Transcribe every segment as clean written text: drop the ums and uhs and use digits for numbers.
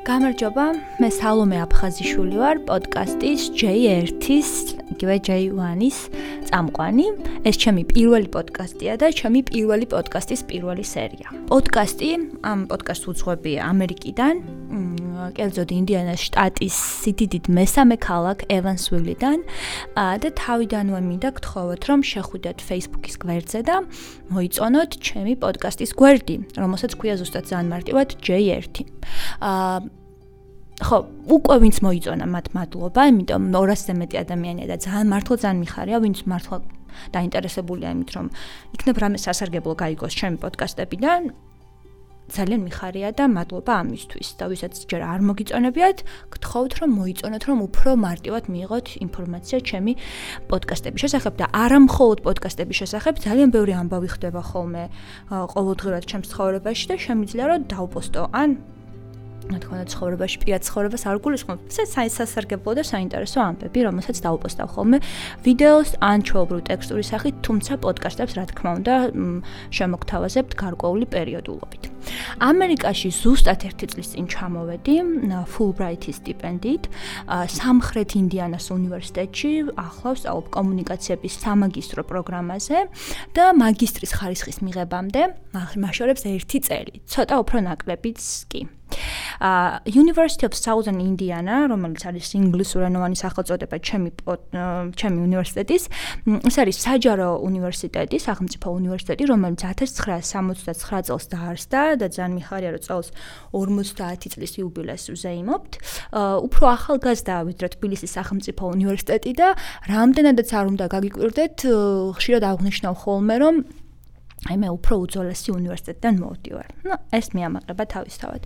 გამარჯობა, მე სალომე აფხაზიშვილი ვარ, პოდკასტის J1-ის, იგივე J1-ის წამყვანი. ეს ჩემი პირველი პოდკასტია და ჩემი პირველი პოდკასტის პირველი სერია. პოდკასტი, ამ პოდკასტს უძღვები ამერიკიდან, კერძოდ ინდიანას შტატის სიდიდით მესამე ქალაქ ევანსვილიდან და თავიდანვე მინდა გთხოვოთ, რომ შეხვიდეთ Facebook-ის გვერდზე და მოიწონოთ ჩემი პოდკასტის გვერდი, რომელსაც ქვია ზუსტად ძალიან მარტივად J1. ხო, უკვე ვინც მოიწონა მათ მადლობა, იმიტომ 200-ზე მეტი ადამიანია და ძალიან ძალიან მიხარია, ვინც მართლა დაინტერესებულია იმით, რომ იქნებ რამე სასარგებლო გაიგოს ჩემი პოდკასტებიდან. ძალიან მიხარია და მადლობა ამისთვის. და ვისაც ჯერ არ მოგიწონებიათ, გთხოვთ რომ მოიწონოთ, რომ უფრო მარტივად მიიღოთ ინფორმაცია ჩემი პოდკასტების შესახებ და არა მხოლოდ პოდკასტების შესახებ, ძალიან ბევრი ამბავი ხდება ხოლმე ყოველდღურად ჩემს ცხოვრებაში და შემიძლია რომ დავპოსტო ან თქვენ ცხოვრებაში პირად ცხოვრებას არ გულისხმობ. სასარგებლო და საინტერესო ამბები, რომელსაც დავპოსტავ ხოლმე ვიდეოს ან ჩვეულებრივ ტექსტური სახით, თუმცა პოდკასტებს რა თქმა უნდა შემოგთავაზებთ გარკვეული პერიოდულობით. ამერიკაში ზუსტად 1 წლის წინ ჩამოვედი Fulbright-ის სტიპენდიით სამხრეთ ინდიანას უნივერსიტეტში, ახლა ვსწავლობ კომუნიკაციების სამაგისტრო პროგრამაზე და მაგისტრის ხარისხის მიღებამდე მაშორებს 1 წელი, ცოტა უფრო ნაკლებიც კი. University of Southern Indiana, რომელიც არის ინგლისურენოვანი სახელწოდება ჩემი უნივერსიტეტის, ეს არის საჯარო უნივერსიტეტი, სახელმწიფო უნივერსიტეტი, რომელიც 1979 წელს დაარსდა და ძალიან მიხარია, რომ წელს 50 წლის იუბილეს ვზეიმობთ. უფრო ახალგაზრდაა ვიდრე თბილისის სახელმწიფო უნივერსიტეტი და რამდენადაც არ უნდა გაგიკვირდეთ, ხშირად აღვნიშნავ ხოლმე, რომ მე უფრო უძველესი უნივერსიტეტიდან მოვდივარ. ეს მიამაყება თავისთავად.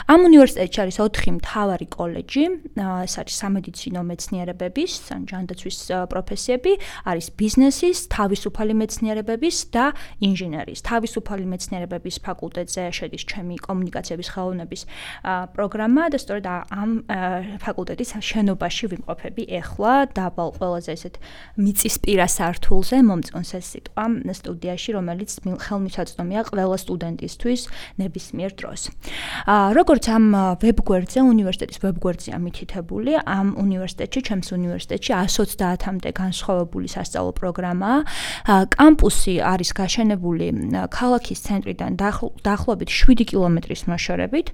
ამ უნივერსიტეტში არის 4 მთავარი კოლეჯი, ეს არის სამედიცინო მეცნიერებების, ან ჯანდაცვის პროფესიები, არის ბიზნესის, თავისუფალი მეცნიერებების და ინჟინერიის. თავისუფალი მეცნიერებების ფაკულტეტზე შედის ჩემი კომუნიკაციების ხელოვნების პროგრამა და სწორედ ამ ფაკულტეტის შენობაში ვიმყოფები ეხლა დაბალ ყველაზე ესეთ მიწისპირა სართულზე, მომწონს ეს სიტყვა სტუდიაში, რომელიც ხელმისაწვდომია ყველა სტუდენტისთვის ნებისმიერ დროს. როგორც ამ ვებგვერდზე, უნივერსიტეტის ვებგვერდზეა მითითებული, ამ უნივერსიტეტში, ჩემს უნივერსიტეტში 130-მდე განსხვავებული სასწავლო პროგრამაა. კამპუსი არის გაშენებული ქალაქის ცენტრიდან დაახლოებით 7 კილომეტრის მოშორებით.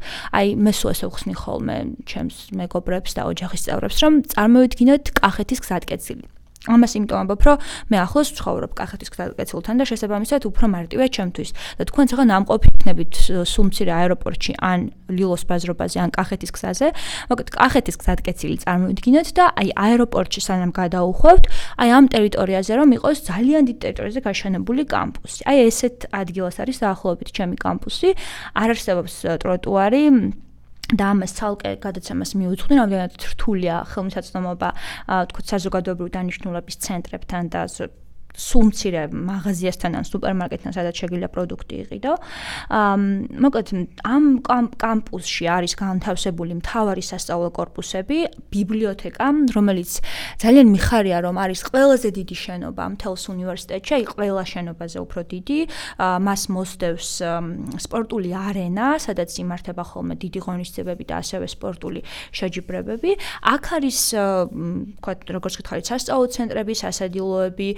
მე სულ ესე ვხსნი ხოლმე ჩემს მეგობრებს და ოჯახის წევრებს, რომ წარმოვიდგინოთ კახეთის გზატკეცილი. ამას იმიტომ ამბობ, რომ მე ახლოს ვცხოვრობ კახეთის გზატკეცილთან და შესაბამისად უფრო მარტივია ჩემთვის. და თქვენ ახლა ნამყოფი იქნებით სულ მცირე აეროპორტში ან ლილოს ბაზრობაზე ან კახეთის გზაზე. მოკლედ კახეთის გზატკეცილი წარმოვიდგინოთ და აეროპორტში სანამ გადაუხვევთ, ამ ტერიტორიაზე რომ იყოს ძალიან დიდ ტერიტორიაზე გაშენებული კამპუსი. ესეთ ადგილას არის დაახლოებით ჩემი კამპუსი. არ არსებობს ტროტუარი და ამას ცალკე გადაცემას მიუძღვნი, რამდენად რთულია ხელმისაწვდომობა, თქვათ საზოგადოებრივი დანიშნულების ცენტრებთან და სულ მცირე მაღაზიასთან ან სუპერმარკეტთან, სადაც შეგიძლია პროდუქტი იყიდო. მოკლედ, ამ კამპუსში არის განთავსებული მთავარი სასწავლო კორპუსები, ბიბლიოთეკა, რომელიც ძალიან მიხარია, რომ არის ყველაზე დიდი შენობა მთელს უნივერსიტეტში, ყველა შენობაზე უფრო დიდი. მას მოსდევს სპორტული არენა, სადაც იმართება ხოლმე დიდი ღონისძიებები და ასევე სპორტული შეჯიბრებები. აქ არის, თქვათ, როგორც გითხარით, სასწავლო ცენტრები, სასადილოები,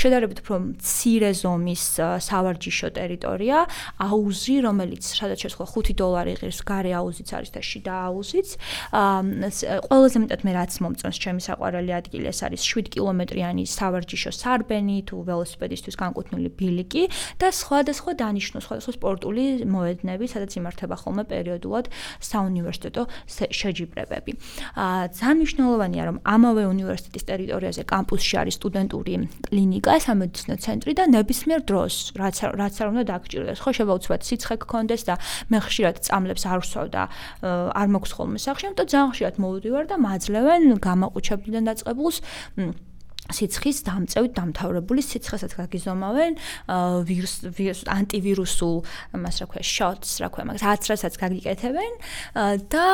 შედარებით უფრო მცირე ზომის სავარჯიშო ტერიტორია, აუზი, რომელიც სადაც შესხვა $5 ღირს, გარე აუზიც არის და შიდა აუზიც. ყველაზე მეტად მე რაც მომწონს ჩემი საყვარელი ადგილი, ეს არის 7 კილომეტრიანი სავარჯიშო სარბენი, თუ ველოსიპედისტვის განკუთვნილი ბილიკი და სხვადასხვა დანიშნულ, სხვადასხვა სპორტული მოედნები, სადაც იმართება ხოლმე პერიოდულად საუნივერსიტეტო შეჯიბრებები. ძალიან მნიშვნელოვანია, რომ ამავე უნივერსიტეტის ტერიტორიაზე კამპუსში არის სტუდენტური კლინიკა, სამედიცინო ცენტრი და ნებისმიერ დროს, რაც არ უნდა დაგჭირდეს. ხო, შეიძლება უცბად სიცხე გქონდეს და მე ხშირად წამლებს არ ვსვავ და არ მაქვს ხოლმე სახში, ამიტომ ძალიან ხშირად მოვდივარ და მაძლევენ გამაყუჩებლიდან დაწყებულს სიცხის დამწევით დამთავრებული სიცხესაც გაგიზომავენ ანტივირუსულ მას რა ქვია shots რა ქვია მაგას რასაც გაგიკეთებენ და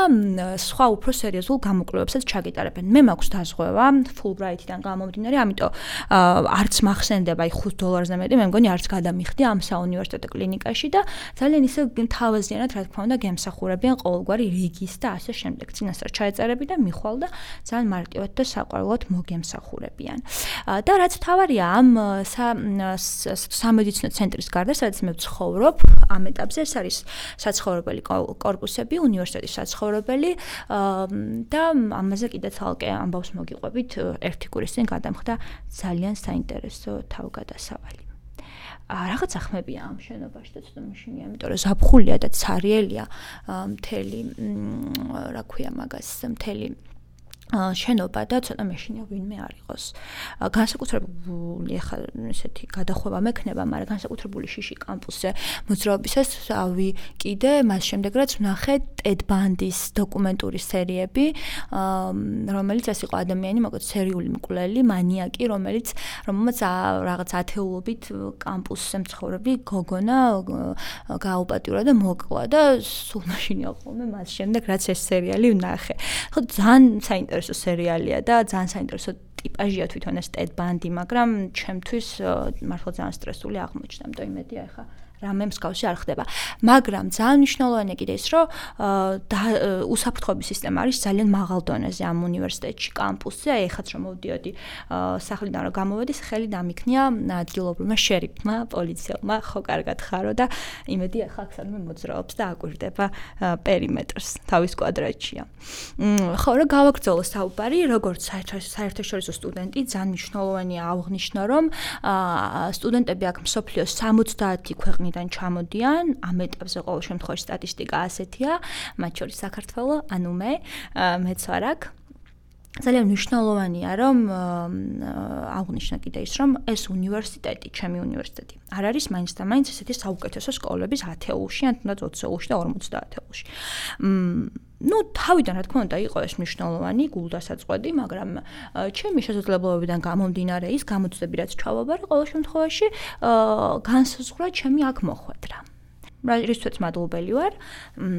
სხვა უფრო სერიოზულ გამოკვლევებსაც ჩაგიტარებენ. მე მაქვს დაზღვევა Fulbright-დან გამომდინარე, ამიტომ არც მახსენდება $5 მეტი, მე მგონი არც გადამიხდი ამ საუნივერსიტეტო კლინიკაში და ძალიან ისე თავაზიანად რა თქმა უნდა გემსახურებიან ყოველგვარი რიგის და ასე შემდეგ. წინასწარ ჩაეწერები და მიხვალ და ძალიან მარტივად და საყვარლად მოგემსახურებიან. და რაც თავარია ამ სამედიცინო ცენტრის გარდა, სადაც მე ვცხოვრობ, ამ ეტაპზე ეს არის საცხოვრებელი კორპუსები, უნივერსიტეტის საცხოვრებელი და ამაზე კიდე თალკე ამბავს მოგიყვებით ერთი კვირის წინ გადამხდა ძალიან საინტერესო თავგადასავალი. რაღაცა ხმებია ამ შენობაში და ცოტა მაშინია, იმიტომ რომ ზაფხულია და ცარიელია მთელი რა ქვია მაგას მთელი შენობა და ცოტა მეშინია ვინმე არ იყოს. განსაკუთრებული ახლა ესეთი გადახვევა მექნება, მაგრამ განსაკუთრებული შიში კამპუსზე მოძრაობისას კიდე მას შემდეგ რაც ვნახე ტედ ბანდის დოკუმენტური სერიები, რომელიც ეს იყო ადამიანი, მოკლედ სერიული მკვლელი, მანიაკი, რომელმაც რაღაც ათეულობით კამპუსზე მცხოვრები გოგონა გააუპატიურა და მოკლა და სულ მაშინია ხოლმე მას შემდეგ რაც ეს სერიალი ვნახე. ხო ძალიან საინტერესო სერიალია და ძალიან საინტერესო ტიპაჟია თვითონ ეს ტედ ბანდი, მაგრამ ჩემთვის მართლა ძალიან სტრესული აღმოჩნდა, იმიტომ იმედია ახლა რამე მსგავსი არ ხდება. მაგრამ ძალიან მნიშვნელოვანია კიდე ის, რომ უსაფრთხოების სისტემა არის ძალიან მაღალ დონეზე ამ უნივერსიტეტში, კამპუსზე. აი ეხაც რომ მოვდიოდი სახლიდან რომ გამოვედი, ხელი დამიქნია ადგილობრივმა შერიფმა, პოლიციელმა, ხო კარგად ხარო და იმედი ახლა აქ სადმე მოძრაობს და აკვირდება პერიმეტრს, თავის კვადრატშია. ხო, რა გავაგრძელო საუბარი, როგორც საერთაშორისო სტუდენტი, ძალიან მნიშვნელოვანია აღვნიშნო, რომ სტუდენტები აქ მსოფლიოს 70 ქვეყნიდან ჩამოდიან, ამ ეტაპზე ყოველ შემთხვევაში სტატისტიკა ასეთია, მათ შორის საქართველო, ანუ მეც ვარ აქ. ძალიან მნიშვნელოვანია, რომ აღვნიშნო კიდე ის, რომ ეს უნივერსიტეტი, ჩემი უნივერსიტეტი, არ არის მაინც და მაინც ესეთი საუკეთესო სკოლების ათეულში, ან თუნდაც 20-ში და 50 ათეულში. თავიდან რა თქმა უნდა იყო ეს მნიშვნელოვანი გულდასაწყვეტი, მაგრამ ჩემი შესაძლებლობებიდან გამომდინარე ის გამოწვევები რაც ჩავაბარე, ყოველ შემთხვევაში განსაზღვრა ჩემი აქ მოხვედრა. რისთვისაც მადლობელი ვარ,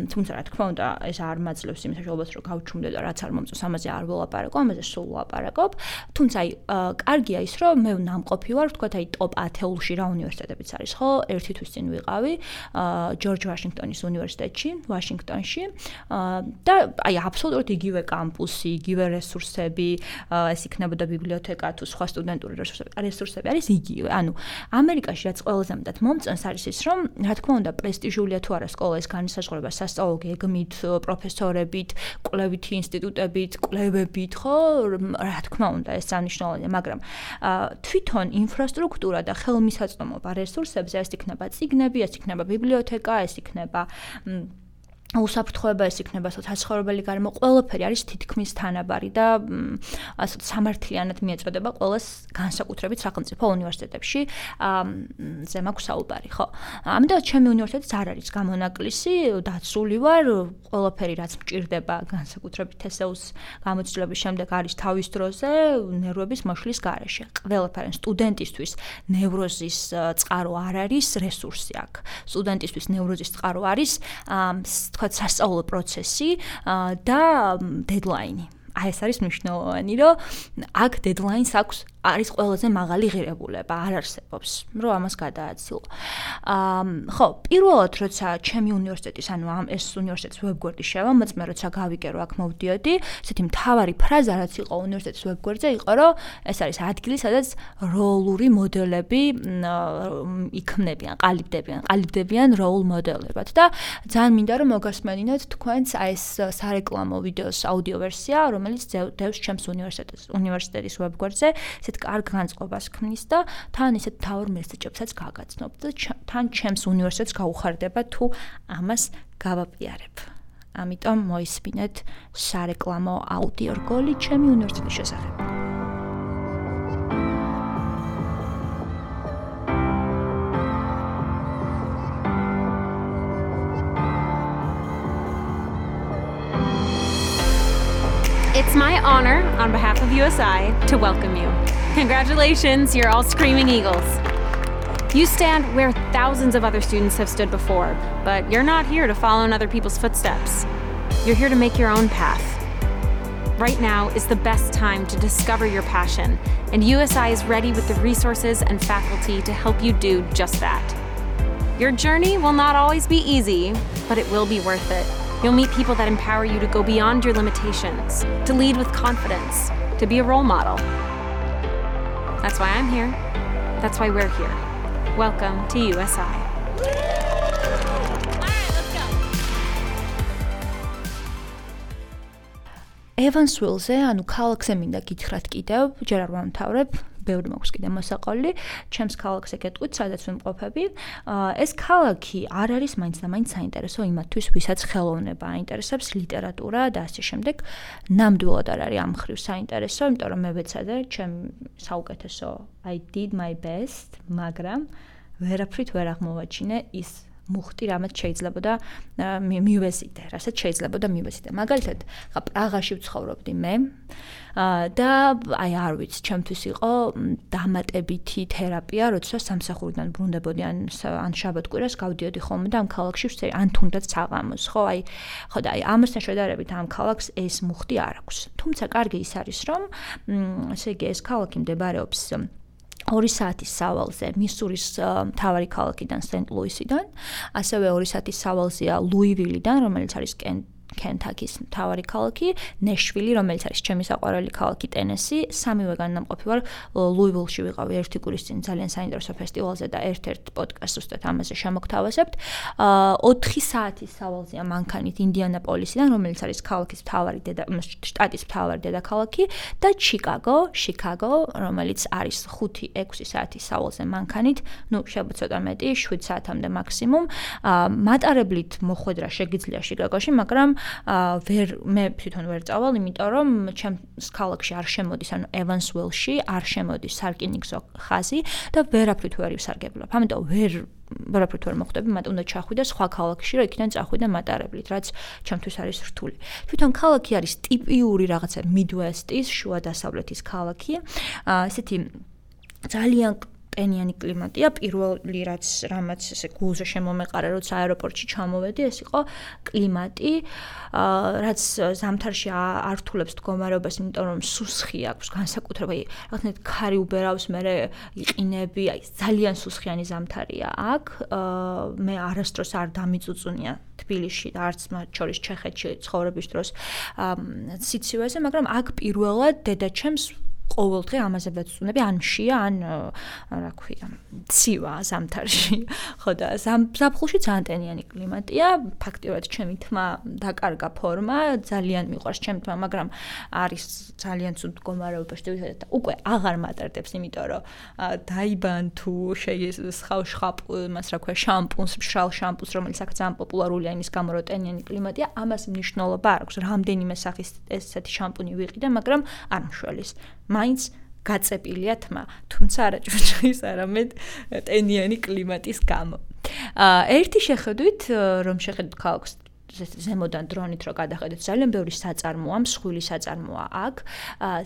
თუმცა რა თქმა უნდა ეს არ მაძლევს იმ საშუალებას რომ გავჩუმდე და რაც არ მომწონს ამაზე არ ველაპარაკო, ამაზე სულ ვლაპარაკობ. თუმცა აი კარგია ის რომ მე ნამყოფი ვარ, ვთქვათ აი ტოპ 10-ში რა უნივერსიტეტებიც არის, ხო? ერთი თვის წინ ვიყავი ჯორჯ ვაშინგტონის უნივერსიტეტში, ვაშინგტონში და აი აბსოლუტურად იგივე კამპუსი, იგივე რესურსები, ეს იქნებოდა ბიბლიოთეკა თუ სხვა სტუდენტური რესურსები არის იგივე. ანუ ამერიკაში რაც ყველაზე მეტად მომწონს არის ის რომ რა თქმა უნდა პრესტიჟულია თუ არა სკოლა, ეს განისაზღვრება სასწავლო გეგმით, პროფესორებით, კვლევითი ინსტიტუტებით, კვლევებით, ხო? რა თქმა უნდა, ეს სანიშნავია, მაგრამ თვითონ ინფრასტრუქტურა და ხელმისაწვდომობა რესურსებზე ეს იქნება წიგნები, ეს იქნება ბიბლიოთეკა, ეს იქნება უსაფრთხოება, ეს იქნება საცხოვრებელი გარემო, ყველაფერი არის თითქმის თანაბარი და ასე სამართლიანად მიეწოდება ყველას განსაკუთრებით სახელმწიფო უნივერსიტეტებში. ზე მაქვს საუბარი, ხო? ამიტომ ჩემი უნივერსიტეტიც არ არის გამონაკლისი, დაცული ვარ, ყველაფერი რაც მჭირდება განსაკუთრებით TSEU-ს გამოცდილების შემდეგ არის თავის დროზე, ნერვების მოშლის გარეშე. ყველაფერი სტუდენტისთვის ნევროზის წყარო არ არის რესურსი აქ. სტუდენტისთვის ნევროზის წყარო არის თქვათ სასწავლო პროცესი და დედლაინი. აი ეს არის მნიშვნელოვანი, რომ აქ დედლაინს აქვს არის ყველაზე მაღალი ღირებულება, არ არსებობს, რომ ამას გადააცილო. ხო, პირველად როცა ჩემი უნივერსიტეტის, ანუ ეს უნივერსიტეტის ვებგვერდი შევამოწმე, როცა გავიგე, რომ აქ მოვდიოდი, ესეთი მთავარი ფრაზა რაც იყო უნივერსიტეტის ვებგვერდზე, იყო, რომ ეს არის ადგილი, სადაც როლური მოდელები იქმნებიან, ყალიბდებიან როლ მოდელებად და ძალიან მინდა რომ მოგასმენინოთ თქვენს აი ეს სარეკლამო ვიდეოს აუდიო ვერსია, რომელიც დევს ჩემს უნივერსიტეტის ვებგვერდზე. კარგ განწყობას ქმნის და თან ისეთ თავარ მესეჯებსაც გაგაცნობ და თან ჩემს უნივერსიტეტს გაუხარდება თუ ამას გავაპიარებ. ამიტომ მოისმინეთ სარეკლამო აუდიო რგოლი ჩემი უნივერსიტეტის შესახებ. It's my honor, on behalf of USI, to welcome you. Congratulations, you're all Screaming Eagles. You stand where thousands of other students have stood before, but you're not here to follow in other people's footsteps. You're here to make your own path. Right now is the best time to discover your passion, and USI is ready with the resources and faculty to help you do just that. Your journey will not always be easy, but it will be worth it. You'll meet people that empower you to go beyond your limitations, to lead with confidence, to be a role model. That's why I'm here. That's why we're here. Welcome to USI. Evansville-ზე, ანუ ქალაქზე მინდა გითხრათ კიდევ, ჯერ არ ვამთავრებ, ბევრი მაქვს კიდე მოსაყოლი, ჩემს ქალაქზე გეტყვით, სადაც ვიმყოფები. ეს ქალაქი არ არის მაინც და მაინც საინტერესო იმათთვის, ვისაც ხელოვნება აინტერესებს, ლიტერატურა და ასე შემდეგ. ნამდვილად არ არის ამ მხრივ საინტერესო, იმიტომ რომ მე ვეცადე, ჩემ საუკეთესო I did my best, მაგრამ ვერაფრით ვერ აღმოვაჩინე ის მუხტი, რამაც შეიძლებოდა მივეზიდე, რასაც შეიძლებოდა მივეზიდე. მაგალითად, ხა პრაღაში ვცხოვრობდი მე და აი არ ვიცი, ჩემთვის იყო დამატებითი თერაპია, როცა სამსახურიდან ბრუნდებოდი ან შაბათ-კვირას გავდიოდი ხოლმე და ამ ქალაქში ვცერი, ან თუნდაც საღამოს, ხო, ხო და ამასთან შედარებით ამ ქალაქს ეს მუხტი არ აქვს. თუმცა კარგი ის არის, რომ ესე იგი ეს ქალაქი მდებარეობს 2 საათის სავალზე მისურის მთავარი ქალაქიდან სენტ-ლუისიდან, ასევე 2 საათის სავალზეა ლუივილიდან, რომელიც არის კენტაკის მთავარი ქალაქი, ნეშვილი, რომელიც არის ჩემი საყვარელი ქალაქი ტენესი, სამივე განმყოფი ვარ ლუივილში ვიყავი ერთი კვირის წინ ძალიან საინტერესო ფესტივალზე და ერთ-ერთ პოდკასტს უსტად ამაზე შემოგთავაზებთ. 4 საათის სავალზეა მანქანით ინდიანაპოლისიდან, რომელიც არის ქალაქის მთავარი შტატის მთავარი დედაქალაქი და შიკაგო, რომელიც არის 5-6 საათის სავალზე მანქანით, ნუ შეიძლება ცოტა მეტი, 7 საათამდე მაქსიმუმ. მატარებლით მოხვედრა შეგიძლია შიკაგოში, მაგრამ მე თვითონ ვერ წავალ, იმიტომ რომ ჩემს ქალაქში არ შემოდის, ანუ Evansville-ში არ შემოდის სარკინიგზო ხაზი და ვერაფრით ვერ ივსარგებლობ. ამიტომ ვერაფრით ვერ მოხვდები, მათ უნდა ჩახვიდე სხვა ქალაქში, რომ იქიდან წახვიდე მატარებლით, რაც ჩემთვის არის რთული. თვითონ ქალაქი არის ტიპიური რაღაცა Midwest-ის, შუა დასავლეთის ქალაქი. ესეთი ძალიან ტენიანი კლიმატია, პირველი რამაც ესე გულზე შემომეყარა, როცა აეროპორტში ჩამოვედი, ეს იყო კლიმატი, რაც ზამთარში ართულებს მდგომარეობას, იმიტომ რომ სუსხი აქვს, განსაკუთრებით რაღაცნაირად ქარი უბერავს, მერე იყინები, აი ძალიან სუსხიანი ზამთარია აქ. მე არასდროს არ დამიწუწუნია თბილისში და არც მათ შორის ჩეხეთში ცხოვრების დროს სიცივეზე, მაგრამ აქ პირველად დედაჩემს ყოველდღე ამაზე ვეცდები, ან მშია, ან რა ქვია, ცივა ზამთარში. ხო და ზაფხულში ძალიან ტენიანი კლიმატია, ფაქტიურად ჩემი თმა დაკარგა ფორმა, ძალიან მიყვარს ჩემი თმა, მაგრამ არის ძალიან ცუდ მდგომარეობაში და უკვე აღარ მატარდებს, იმიტომ რომ დაიბან თუ შხაპ, რა ქვია, შამპუნს, მშრალ შამპუნს, რომელიც აქ ძალიან პოპულარულია იმის გამო, რომ ტენიანი კლიმატია, ამას მნიშვნელობა არ აქვს. რამდენიმე სახის ესეთი შამპუნი ვიყიდე, მაგრამ არ მშველის. მაინც გაწეპილია თმა, თუმცა არა ჭურჭლის, არამედ ტენიანი კლიმატის გამო. ერთი შეხედვით, რომ შეხედოთ ქალაქს ზემოდან დრონით რო გადახედოთ, ძალიან ბევრი საწარმოა, მსხვილი საწარმოა აქ,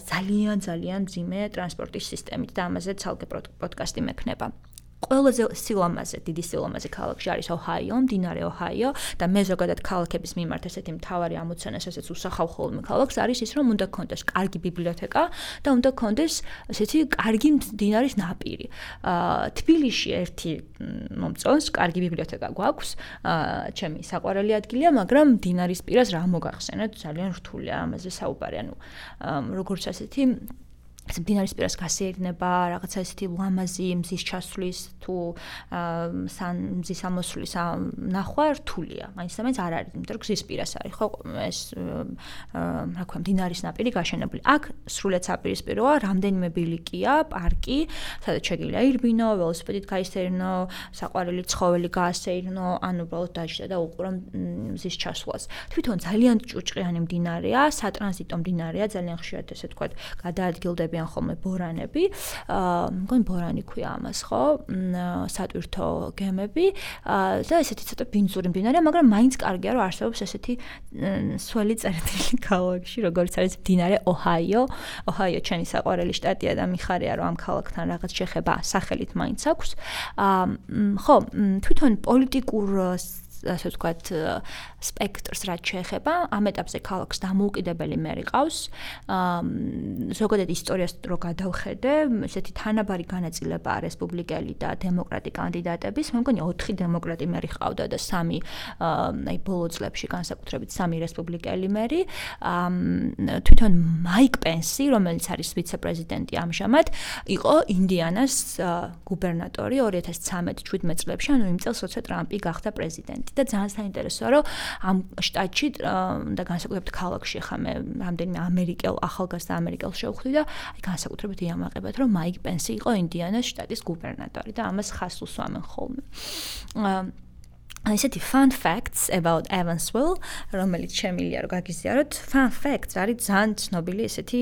ძალიან მძიმე ტრანსპორტის სისტემით და ამაზე ცალკე პოდკასტი მექნება. ყველაზე დიდი სილამაზე ქალაქში არის ოჰაიო, მდინარე ოჰაიო და მე ზოგადად ქალაქების მიმართ ესეთი მთავარი ამოცანა, ესეც უსახავ ხოლმე ქალაქს არის ის, რომ უნდა გქონდეს კარგი ბიბლიოთეკა და უნდა გქონდეს ესეთი კარგი მდინარის ნაპირი. თბილისში ერთი მომწონს, კარგი ბიბლიოთეკა გვაქვს, ჩემი საყვარელი ადგილია, მაგრამ მდინარის პირას რა მოგახსენოთ, ძალიან რთულია ამაზე საუბარი, ანუ როგორც ასეთი მდინარის პირას გასეირნება, რაღაცა ესეთი ლამაზი მზის ჩასვლის თუ მზის ამოსვლის ნახვა რთულია. მაინც და მაინც არ არის, იმიტომ რომ გზის პირას არის, ხო, ეს რა ქვია, მდინარის ნაპირი გაშენებული. აქ სრულიად საპირისპიროა, რამდენიმე ბილიკია, პარკი, სადაც შეგიძლია ირბინო, ველოსიპედით გაისეირნო, საყვარელი ცხოველი გაასეირნო, ან უბრალოდ დაჯდა და უყურო მზის ჩასვლას. თვითონ ძალიან ჭუჭყიანი მდინარეა, სატრანზიტო მდინარეა, ძალიან ხშირად ესე ვთქვათ, გადაადგილდებიან ხოლმე ბორანები. მგონი ბორანი ქვია ამას, ხო? სატვირთო გემები და ესეთი ცოტა ბინძური მდინარეა, მაგრამ მაინც კარგია, რომ არსებობს ესეთი სველი წერტილი ქალაქში, როგორც არის მდინარე ოჰაიო. ოჰაიო ჩემი საყვარელი შტატია და მიხარია, რომ ამ ქალაქთან რაღაც შეხება სახელით მაინც აქვს. ხო, თვითონ პოლიტიკურ ასე ვთქვათ, სპექტრს რაც შეეხება, ამ ეტაპზე ქალაქს დამოუკიდებელი მერი ყავს. ზოგადად ისტორიას რო გადავხედე, ესეთი თანაბარი განაწილებაა რესპუბლიკელი და დემოკრატი კანდიდატების. მე მგონი 4 დემოკრატი მერი ყავდა და 3 აი ბოლო წლებში განსაკუთრებით 3 რესპუბლიკელი მერი. თვითონ მაიკ პენსი, რომელიც არის ვიცე-პრეზიდენტი ამჟამად, იყო ინდიანას გუბერნატორი 2013-17 წლებში, ანუ იმ წელს, როცა ტრამპი გახდა პრეზიდენტი. და ძალიან საინტერესოა, რომ ამ შტატში და განსაკუთრებით ქალაქში ხა მე რამდენიმე ახალგაზრდა ამერიკელს შევხვდი და აი განსაკუთრებით იამაყებათ, რომ მაიკ პენსი იყო ინდიანას შტატის გუბერნატორი და ამას ხაზს უსვამენ ხოლმე. ესეთი fun facts about Evansville, რომელიც შემილია რომ გაგიზიაროთ. Fun facts არის ძალიან ცნობილი ესეთი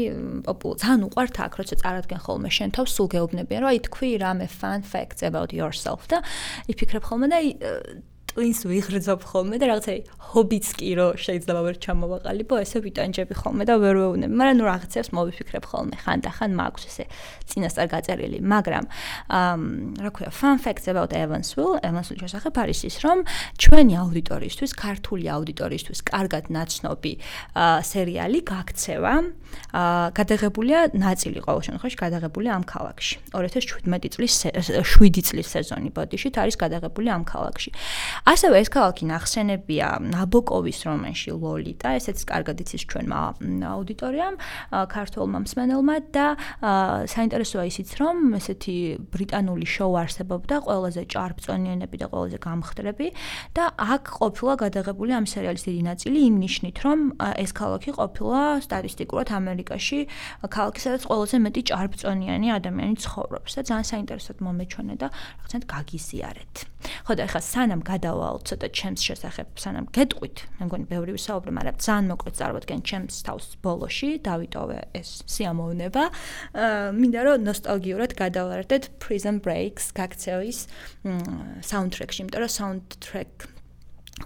ძალიან უყვართ აქ, როცა წარადგენ ხოლმე შენ თავს, სულ გეუბნებიან, რომ აი თქვი რამე fun facts about yourself და იფიქრებ ხოლმე და twins ვიღრძობ ხოლმე და რაღაცა ჰობიც კი რო შეიძლება ვერ ჩამოვაყალიბო, ესე ვიტანჯები ხოლმე და ვერ ვეუბნები, მაგრამ ნუ რაღაცებს მოვიფიქრებ ხოლმე, ხანდახან მაქვს ესე წინასწარ გაწერილი, მაგრამ რა ქვია, fun facts about Evansville შესახებ არის ის, რომ ჩვენი აუდიტორიისთვის, ქართული აუდიტორიისთვის კარგად ნაცნობი სერიალი გაქცევა, გადაღებულია ნაწილი ყოველ შემთხვევაში გადაღებულია ამ ქალაქში. 2017 წლის სეზონი ბოდიშით არის გადაღებული ამ ქალაქში. ასევე ეს ქალაქი ნახსენებია ნაბოკოვის რომანში ლოლიტა, ესეც კარგად იცის ჩვენმა აუდიტორიამ, ქართულმა მსმენელმა და საინტერესოა ისიც, რომ ესეთი ბრიტანული შოუ არსებობდა, ყველაზე ჭარბწონიანები და ყველაზე გამხდრები და აქ ყოფილა გადაღებული ამ სერიალის დიდი ნაწილი იმ ნიშნით, რომ ეს ქალაქი ყოფილა სტატისტიკურად ამერიკაში ქალაქი, სადაც ყველაზე მეტი ჭარბწონიანი ადამიანი ცხოვრობს და ძალიან საინტერესოდ მომეჩვენე და რაღაცნაირად გაგიზიარეთ. ხო და ეხლა სანამ გადავალ ცოტა ჩემს შესახებ, სანამ გეტყვით, მე მგონი ბევრი ვისაუბრე, მაგრამ ძალიან მოკლედ წარვადგენ ჩემს თავს ბოლოში, დავიტოვე ეს სიამოვნება. მინდა რომ ნოსტალგიურად გადავარდეთ Prison Break-ს გაქცევის საუნდტრეკში, იმიტომ რომ საუნდტრეკ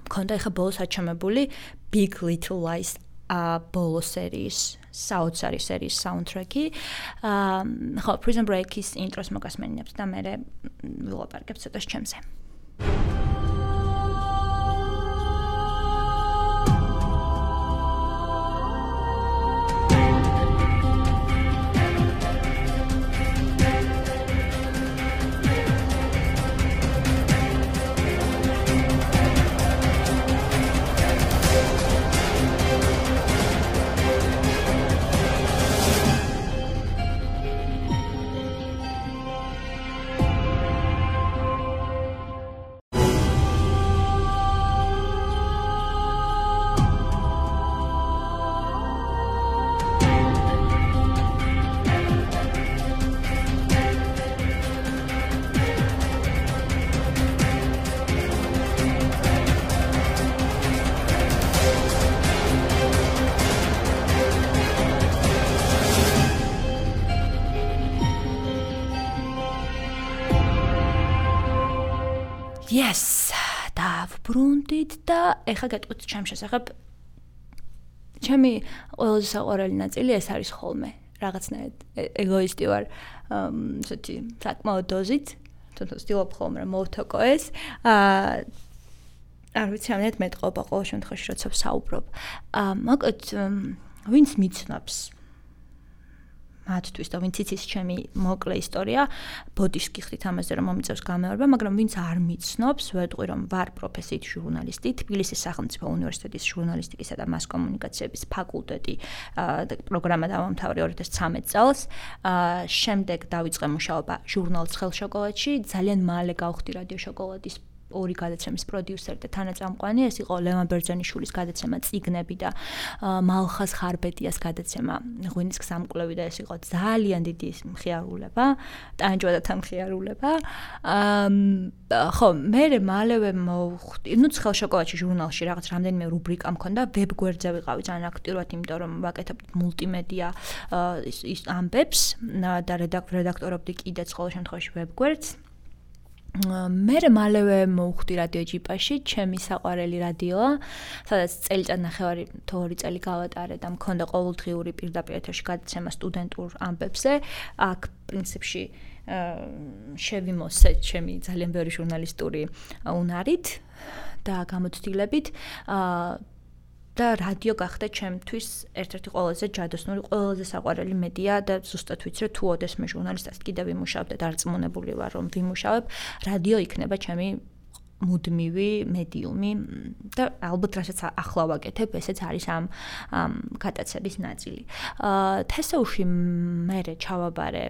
მქონდა ეხლა ბოლოს აჩამებული Big Little Lies ბოლო სერიის საოცარი სერიის საუნდტრეკი. ხო, Prison Break-ის ინტროს მოგასმენინებთ და მე ვილაპარაკებ ცოტას ჩემზე. Yes, დავბრუნდით და ეხლა გეტყვით ჩემს შესახებ. ჩემი ყველაზე საყვარელი ნაწილი ეს არის ხოლმე. რაღაცნაირად ეგოისტი ვარ, ესეთი საკმაოდ დოზით, თუნდაც ვცდილობ ხოლმე რომ მოვთოკო ეს. არ ვიცი, ამით მეტყობა ყოველ შემთხვევაში, როცა ვსაუბრობ. მოკლედ, ვინც მიცნობს მათთვის და ვინც იცის ჩემი მოკლე ისტორია, ბოდიშს გიხდით ამაზე, რომ მომიწევს გამეორება, მაგრამ ვინც არ მიცნობს, ვეტყვი, რომ ვარ პროფესიით ჟურნალისტი, თბილისის სახელმწიფო უნივერსიტეტის ჟურნალისტიკისა და მას კომუნიკაციების ფაკულტეტი პროგრამა დავამთავრე 2013 წელს. შემდეგ დავიწყე მუშაობა ჟურნალ ცხელ შოკოლადში, ძალიან მალე გავხდი რადიო შოკოლადის ორი გადაცემის პროდიუსერი და თანაწამყვანი, ეს იყო ლევან ბერძენიშვილის გადაცემა წიგნები და მალხაზ ხარბედიას გადაცემა ღვინის გზამკვლევი და ეს იყო ძალიან დიდი მხიარულება, ტანჯვადათან მხიარულება. ხო, მე მალევე მოვხვდი, ცხელ შოკოლადში ჟურნალში რაღაც რამდენიმე რუბრიკა მქონდა, ვებგვერდზე ვიყავი ძალიან აქტიურად, იმიტომ რომ ვაკეთებდი მულტიმედია ის ამბებს და რედაქტორობდი კიდეც ყოველ შემთხვევაში ვებგვერდს. მე მალევე მოვხვდი რადიო ჯიპაში, ჩემი საყვარელი რადიოა, სადაც წელიწადნახევარი თუ 2 წელი გავატარე და მქონდა ყოველდღიური პირდაპირ ეთერში გადაცემა სტუდენტურ ამბებზე. აქ პრინციპში შევიმოსე ჩემი ძალიან ბევრი ჟურნალისტური უნარით და გამოცდილებით და რადიო გახდა ჩემთვის ერთ-ერთი ყველაზე ჯადოსნური, ყველაზე საყვარელი მედია და ზუსტად ვიცი, რომ თუ ოდესმე ჟურნალისტად კიდევ ვიმუშავებ და დარწმუნებული ვარ, რომ ვიმუშავებ, რადიო იქნება ჩემი მუდმივი მედიუმი და ალბათ რასაც ახლა ვაკეთებ, ესეც არის ამ გადაცემის ნაწილი. თესაუში მე ჩავაბარე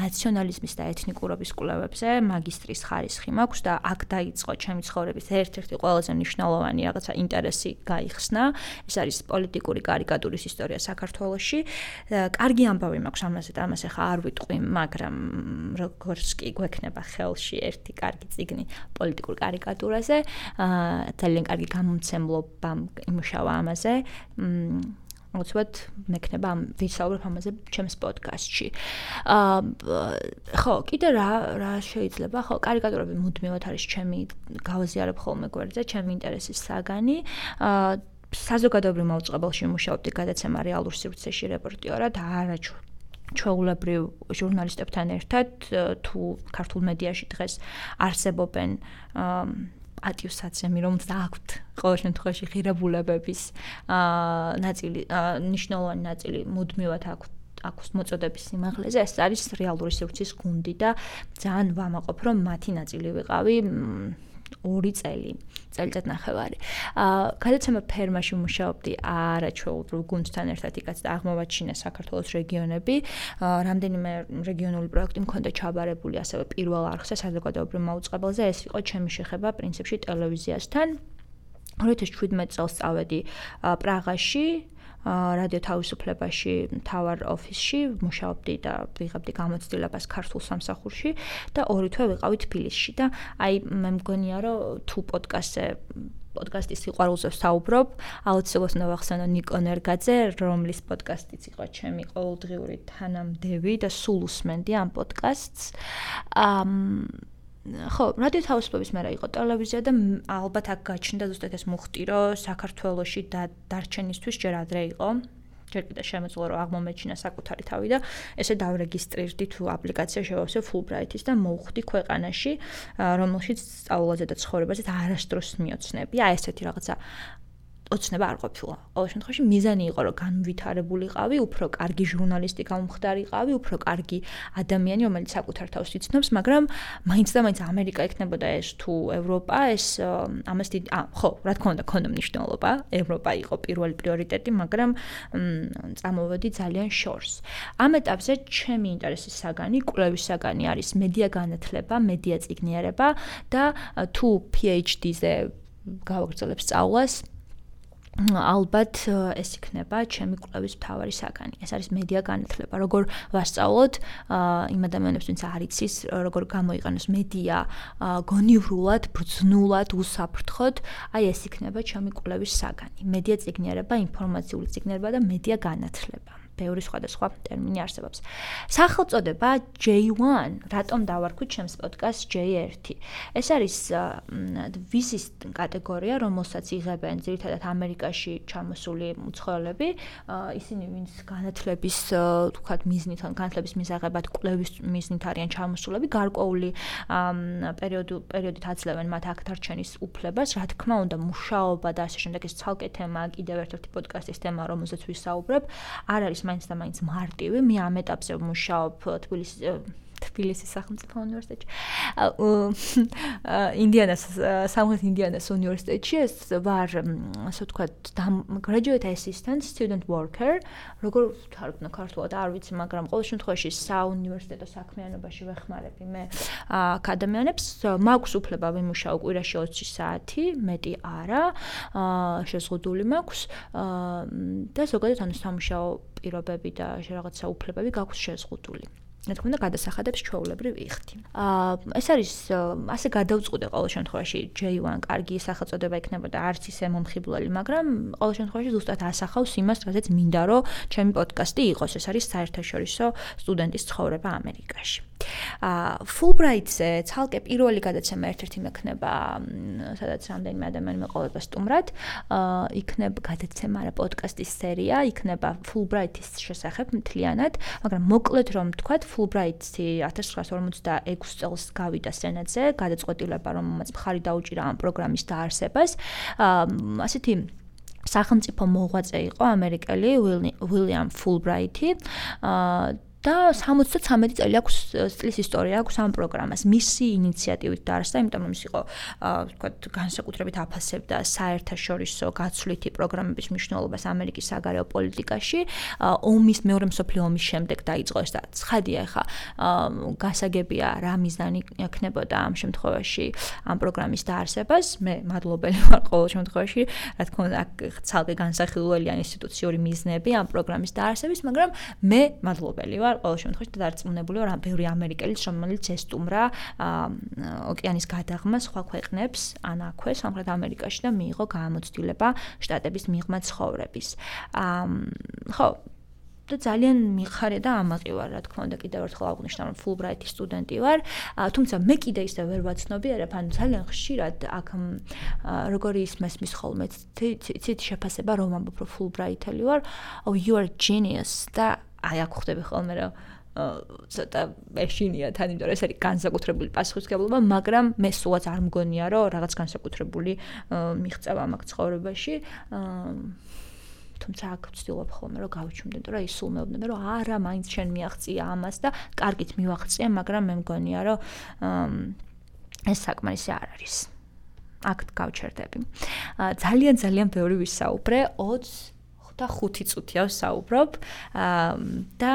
ნაციონალიზმის და ეთნიკურობის კვლევებზე, მაგისტრის ხარისხი მაქვს და აქ დაიწყო ჩემი ცხოვრების ერთ-ერთი ყველაზე მნიშვნელოვანი რაღაცა ინტერესი გაიხსნა. ეს არის პოლიტიკური კარიკატურის ისტორია საქართველოში. კარგი ამბავი მაქვს ამაზე და ამას ახლა არ ვიტყვი, მაგრამ როგორც კი გვექნება ხელში ერთი კარგი წიგნი პოლიტიკურ კარიკატურაზე, ძალიან კარგი გამომცემლობა იმუშავა ამაზე. უცბად მექნება ვისაუბრებ ამაზე ჩემს პოდკასტში. ხო, კიდე რა შეიძლება, ხო, კარიკატურები მუდმივად არის ჩემი გავაზიარებ ხოლმე გვერდზე, ჩემი ინტერესის საგანი. საზოგადოებრივ მაუწყებელში ვმუშაობდი გადაცემა რეალურ სივრცეში რეპორტიორად, არა ჩვეულებრივ ჟურნალისტებთან ერთად, თუ ქართულ მედიაში დღეს არსებობენ პატივსაცემი, რომელსაც აქვთ ყოველ შემთხვევაში ღირებულებების ნაწილი, მნიშვნელოვანი ნაწილი მუდმივად აქვს მოწოდების სიმაღლეზე, ეს არის რეალური სივრცის გუნდი და ძალიან ვამაყობ, რომ მათი ნაწილი ვიყავი 2 წელიწადნახევარი. გადაცემა ფერმაში ვმუშაობდი არაჩვეულებრივ გუნდთან ერთად, იქაც აღმოვაჩინა საქართველოს რეგიონები. რამდენიმე რეგიონული პროექტი მქონდა ჩაბარებული ასევე პირველ არხზე საზოგადოებრივ მაუწყებელზე. ეს იყო ჩემი შეხება პრინციპში ტელევიზიასთან. 2017 წელს წავედი პრაღაში, რადიო თავისუფლებაში, მთავარ ოფისში ვმუშაობდი და ვიღებდი გამოცდილებას ქართულ სამსახურში და 2 თვე ვიყავი თბილისში და აი მე მგონია რომ თუ პოდკასტის სიყვარულზე ვსაუბრობ, აუცილებლად უნდა ვახსენო ნიკო ნერგაძე, რომლის პოდკასტიც იყო ჩემი ყოველდღიური თანამდევი და სულ უსმენდი ამ პოდკასტს. ხო, რადიო თავისუფლების მერე იყო ტელევიზია და ალბათ აქ გაჩნდა ზუსტად ეს მუხტი, რომ საქართველოში დარჩენისთვის ჯერ ადრე იყო. ჯერ კიდევ შემეძლო რომ აღმომეჩინა საკუთარი თავი და ესე დავრეგისტრირდი თუ აპლიკაცია შევავსე Fulbright-ის და მოვხვდი ქვეყანაში, რომელშიც სწავლაზე და ცხოვრებაზე არასდროს მიოცნები. აი ესეთი რაღაცა ოცნება არ ყოფილა. ყოველ შემთხვევაში მიზანი იყო რომ განვითარებულიყავი, უფრო კარგი ჟურნალისტი გამხდარიყავი, უფრო კარგი ადამიანი, რომელიც საკუთარ თავს იცნობს, მაგრამ მაინც და მაინც ამერიკა იქნებოდა ეს თუ ევროპა, ეს ამას დიდი ხო, რა თქმა უნდა, ქონდა მნიშვნელობა, ევროპა იყო პირველი პრიორიტეტი, მაგრამ წამოვედი ძალიან შორს. ამ ეტაპზე ჩემი ინტერესის საგანი, კვლევის საგანი არის მედია განათლება, მედია წიგნიერება და თუ PhD-ზე გავაგრძელებ სწავლას, ალბათ ეს იქნება ჩემი კვლევის მთავარი საგანი. ეს არის მედია განათლება. როგორ ვასწავლოთ იმ ადამიანებს, ვინც არ იცის, როგორ გამოიყენოს მედია გონივრულად, ბრძნულად, უსაფრთხოდ, აი ეს იქნება ჩემი კვლევის საგანი. მედია წიგნიერება, ინფორმაციული წიგნიერება და მედია განათლება. ბევრი სხვადასხვა ტერმინი არსებობს. სახელწოდება J1, რატომ დავარქვით ჩემს პოდკასტს J1? ეს არის ვიზის კატეგორია, რომელსაც იღებენ ძირითადად ამერიკაში ჩამოსული მუცხოველები, ისინი ვინც განათლების, თქვათ, მიზნით, განათლების მისაღებად კვლევის მიზნით არიან ჩამოსულები, გარკვეული პერიოდით აძლევენ მათ აქ დარჩენის უფლებას, რა თქმა უნდა, მუშაობა და ასე შემდეგ, ეს ცალკე თემა, კიდევ ერთ-ერთი პოდკასტის თემა, რომელზეც ვისაუბრებ, არ არის მაინც და მაინც მარტივი. მე ამ ეტაპზე ვმუშაობ თბილისის სახელმწიფო უნივერსიტეტში. ინდიანას სამხრეთ ინდიანას უნივერსიტეტში ეს ვარ, ასე ვთქვათ, graduate assistant, student worker, როგორ ვთარგმნო ქართულად არ ვიცი, მაგრამ ყოველ შემთხვევაში საუნივერსიტეტო საქმიანობაში ვეხმარები მე ადამიანებს. მაქვს უფლება ვიმუშაო კვირაში 20 საათი, მეტი არა, შეზღუდული მაქვს და ზოგადად ანუ სამუშაო პირობები და რაღაცა უფლებები გაქვს შეზღუდული. რა თქმა უნდა, გადასახადებს ჩვეულებრივ ვიხდი. ეს არის ასე გადავწყვიტე ყოველ შემთხვევაში J1 კარგი სახელწოდება იქნებოდა არც ისე მომხიბვლელი, მაგრამ ყოველ შემთხვევაში ზუსტად ასახავს იმას, რაზეც მინდა რომ ჩემი პოდკასტი იყოს. ეს არის საერთაშორისო სტუდენტის ცხოვრება ამერიკაში. Fulbright-ზე ცალკე პირველი გადაცემა ერთ-ერთი მექნება, სადაც რამდენიმე ადამიანი მეყოლება სტუმრად, იქნება გადაცემა რა პოდკასტის სერია, იქნება Fulbright-ის შესახებ მთლიანად, მაგრამ მოკლედ რომ ვთქვათ, Fulbright-ი 1956 წელს გავიდა სენატზე, გადაწყვეტილება, რომელმაც მხარი დაუჭირა ამ პროგრამის დაარსებას. ასეთი სახელმწიფო მოღვაწე იყო ამერიკელი William Fulbright-ი. და 73 წელი აქვს წლის ისტორია აქვს ამ პროგრამას. მისი ინიციატივით დაარსდა, იმიტომ რომ ის იყო, ვთქვათ, განსაკუთრებით აფასებდა საერთაშორისო გაცვლითი პროგრამების მნიშვნელობას ამერიკის საგარეო პოლიტიკაში. ომის მეორე მსოფლიო ომის შემდეგ დაიწყო ეს და ცხადია ხა, გასაგებია რა მიზანი ექნებოდა ამ შემთხვევაში ამ პროგრამის დაარსებას. მე მადლობელი ვარ ყოველ შემთხვევაში, რა თქმა უნდა, ცალკე განსახილველია ინსტიტუციური მიზნები ამ პროგრამის დაარსების, მაგრამ მე მადლობელი ვარ ყოველ შემთხვევაში და დარწმუნებული ვარ, ბევრი ამერიკელიც, რომელიც ესტუმრა ოკეანის გადაღმას სხვა ქვეყნებს, ან აქვე სამხრეთ ამერიკაში და მიიღო გამოცდილება შტატების მიღმა ცხოვრების. ხო, და ძალიან მიხარია და ამაყი ვარ, რა თქმა უნდა, კიდევ ერთხელ აღვნიშნავ, რომ Fulbright-ის სტუდენტი ვარ, თუმცა მე კიდე ისე ვერ ვაცნობიერებ, ანუ ძალიან ხშირად აქ როგორი ისმის ხოლმე ცით შეფასება რომ ამბობ, რომ Fulbright-ელი ვარ, oh you are genius და აი აქ ხვდები ხოლმე რომ ცოტა ეშინია თან, იმიტომ რომ ეს არის განსაკუთრებული პასუხისმგებლობა, მაგრამ მე სულაც არ მგონია, რომ რაღაც განსაკუთრებული მიღწევა მაქვს ცხოვრებაში. თუმცა აქ ვცდილობ ხოლმე რომ გავიჩუმდე, რომ ის სულ მეუბნება, რომ არა, მაინც შენ მიაღწია ამას და კარგით მივაღწია, მაგრამ მე მგონია, რომ ეს საკმარისი არ არის. აქ გავჩერდები. ძალიან ბევრი ვისაუბრე, 25 წუთია ვსაუბრობ და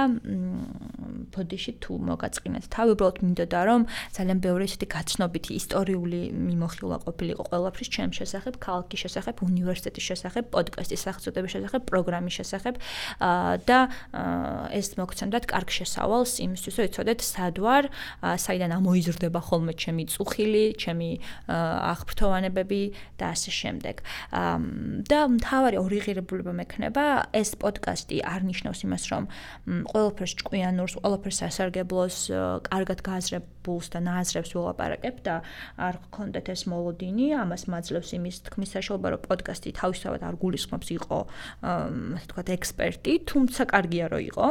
ბოდიში თუ მოგაწყინეთ თავი, უბრალოდ მინდოდა რომ ძალიან ბევრი ესეთი გაცნობითი ისტორიული მიმოხილვა ყოფილიყო ყველაფრის ჩემ შესახებ, ქალაქის შესახებ, უნივერსიტეტის შესახებ, პოდკასტის სახელწოდების შესახებ, პროგრამის შესახებ და ეს მოგცემდათ კარგ შესავალს იმისთვის, რომ იცოდეთ სად ვარ, საიდან ამოიზრდება ხოლმე ჩემი წუხილი, ჩემი აღფრთოვანებები და ასე შემდეგ. და მთავარი ორი ღირებულება მექნება ეს პოდკასტი არ ნიშნავს იმას, რომ ყველაფერს ჭკვიანურს, ყველაფერს სასარგებლოს, კარგად გააზრებულს და ნააზრებს ვილაპარაკებ და არ გქონდეთ ეს მოლოდინი, ამას მაძლევს იმის თქმის საშუალება, რომ პოდკასტი თავისთავად არ გულისხმობს იყო, ასე ვთქვათ, ექსპერტი, თუმცა კარგია რომ იყო.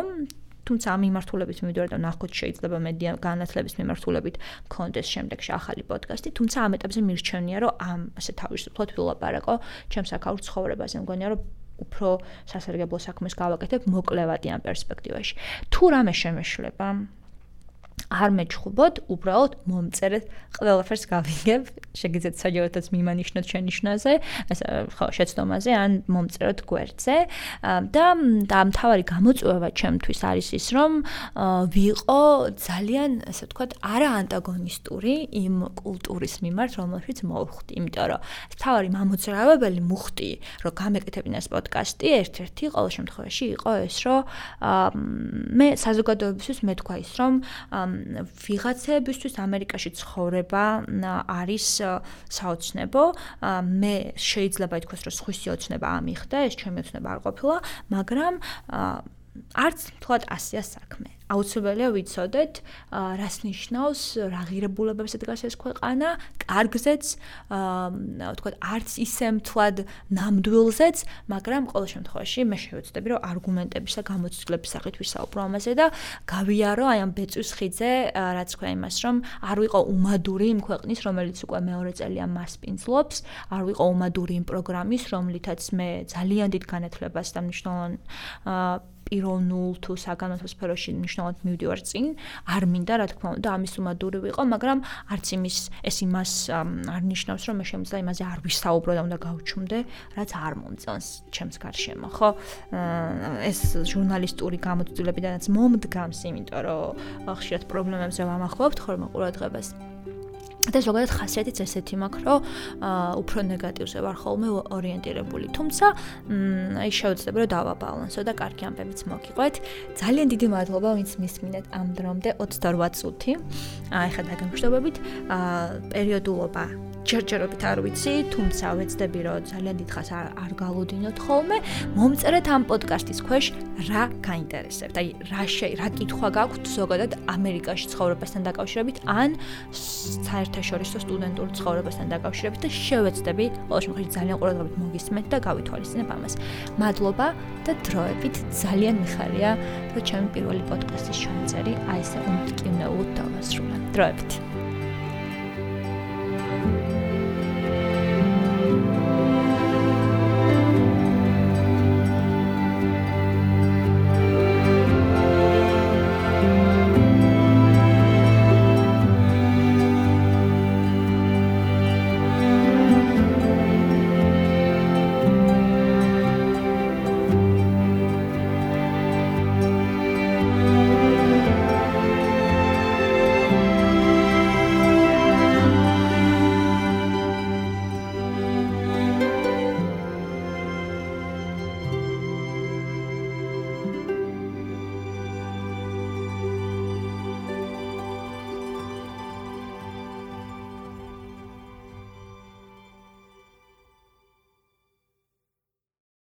თუმცა ამ მიმართულებით მივიდოდი და ნახოთ შეიძლება მედია განათლების მიმართულებით მქონდეს შემდეგში ახალი პოდკასტი, თუმცა ამ ეტაპზე მირჩენია, რომ ამ ასე თავისუფლად ვილაპარაკო ჩემს აქაურ ცხოვრებაზე. მგონია, რომ უფრო სასარგებლო საქმეს გავაკეთებ მოკლევადი ამ პერსპექტივაში. თუ რამე შემეშლება, არ მეჩხუბოთ, უბრალოდ მომწერეთ, ყველაფერს გავიგებ, შეგიძლიათ საჯაროდაც მიმანიშნოთ შენიშვნაზე, ხო, შეცდომაზე, ან მომწეროთ გვერდზე და მთავარი გამოწვევა ჩემთვის არის ის, რომ ვიყო ძალიან, ასე ვთქვათ, არა ანტაგონისტური იმ კულტურის მიმართ, რომელშიც მოვხვდი, იმიტომ რომ მთავარი მამოძრავებელი მუხტი, რომ გამეკეთებინა ეს პოდკასტი, ერთ-ერთი ყოველ შემთხვევაში იყო ეს, რომ მე საზოგადოებისთვის მეთქვა ის, რომ ვიღაცებისთვის ამერიკაში ცხოვრება არის საოცნებო. მე შეიძლება ითქვას, რომ სხვისი ოცნება ამიხდა, ეს ჩემი ოცნება არ ყოფილა, მაგრამ არც თქვათ ასია საქმე. აუცილებელია ვიცოდეთ, რას ნიშნავს, რა ღირებულებებს დგას ეს ქვეყანა, კარგზეც, თქვათ, არც ისე მთლად ნამდვილზეც, მაგრამ ყოველ შემთხვევაში მე შევეცდები, რომ არგუმენტების და გამოცდილების სახით ვისაუბრო ამაზე და გავიარო აი ამ ბეწვის ხიდზე, რაც თქვა იმას, რომ არ ვიყო უმადური იმ ქვეყნის, რომელიც უკვე მეორე წელია მასპინძლობს, არ ვიყო უმადური იმ პროგრამის, რომლითაც მე ძალიან დიდ განათლებას და მნიშვნელოვან პირველ 0 თუ საგანმანათლებლო სფეროში მნიშვნელოვნად მივდივარ წინ, არ მინდა რა თქმა უნდა ამის უმადური ვიყო, მაგრამ არც ეს იმას არ ნიშნავს, რომ მე შემიძლია იმაზე არ ვისაუბრო და უნდა გავჩუმდე, რაც არ მომწონს ჩემს გარშემო, ხო? ეს ჟურნალისტური გამოცდილებიდანაც მომდგამს, იმიტომ რომ ხშირად პრობლემებზე ვამახვილებთ ხოლმე ყურადღებას. და ზოგადად ხასიათიც ესეთი მაქვს, რომ უფრო ნეგატივზე ვარ ხოლმე ორიენტირებული. თუმცა, აი შევეცდები რომ დავაბალანსო და კარგი ამბებიც მოგიყვეთ. ძალიან დიდი მადლობა, ვინც მისმინეთ ამ დრომდე 28 წუთი. ეხლა დაგემშვიდობებით. პერიოდულობა ჯერჯერობით არ ვიცი, თუმცა ვეცდები რომ ძალიან დიდხანს არ გალოდინოთ ხოლმე. მომწერეთ ამ პოდკასტის ქვეშ რა გაინტერესებთ. აი რა კითხვა გაქვთ ზოგადად ამერიკაში ცხოვრებასთან დაკავშირებით ან საერთაშორისო სტუდენტურ ცხოვრებასთან დაკავშირებით და შევეცდები ყოველ შემთხვევაში ძალიან ყურადღებით მოგისმენთ და გავითვალისწინებ ამას. მადლობა და დროებით ძალიან მიხარია, რომ ჩემი პირველი პოდკასტის ჩამწერი აი ესე უმტკივნეულოდ დავასრულე. დროებით.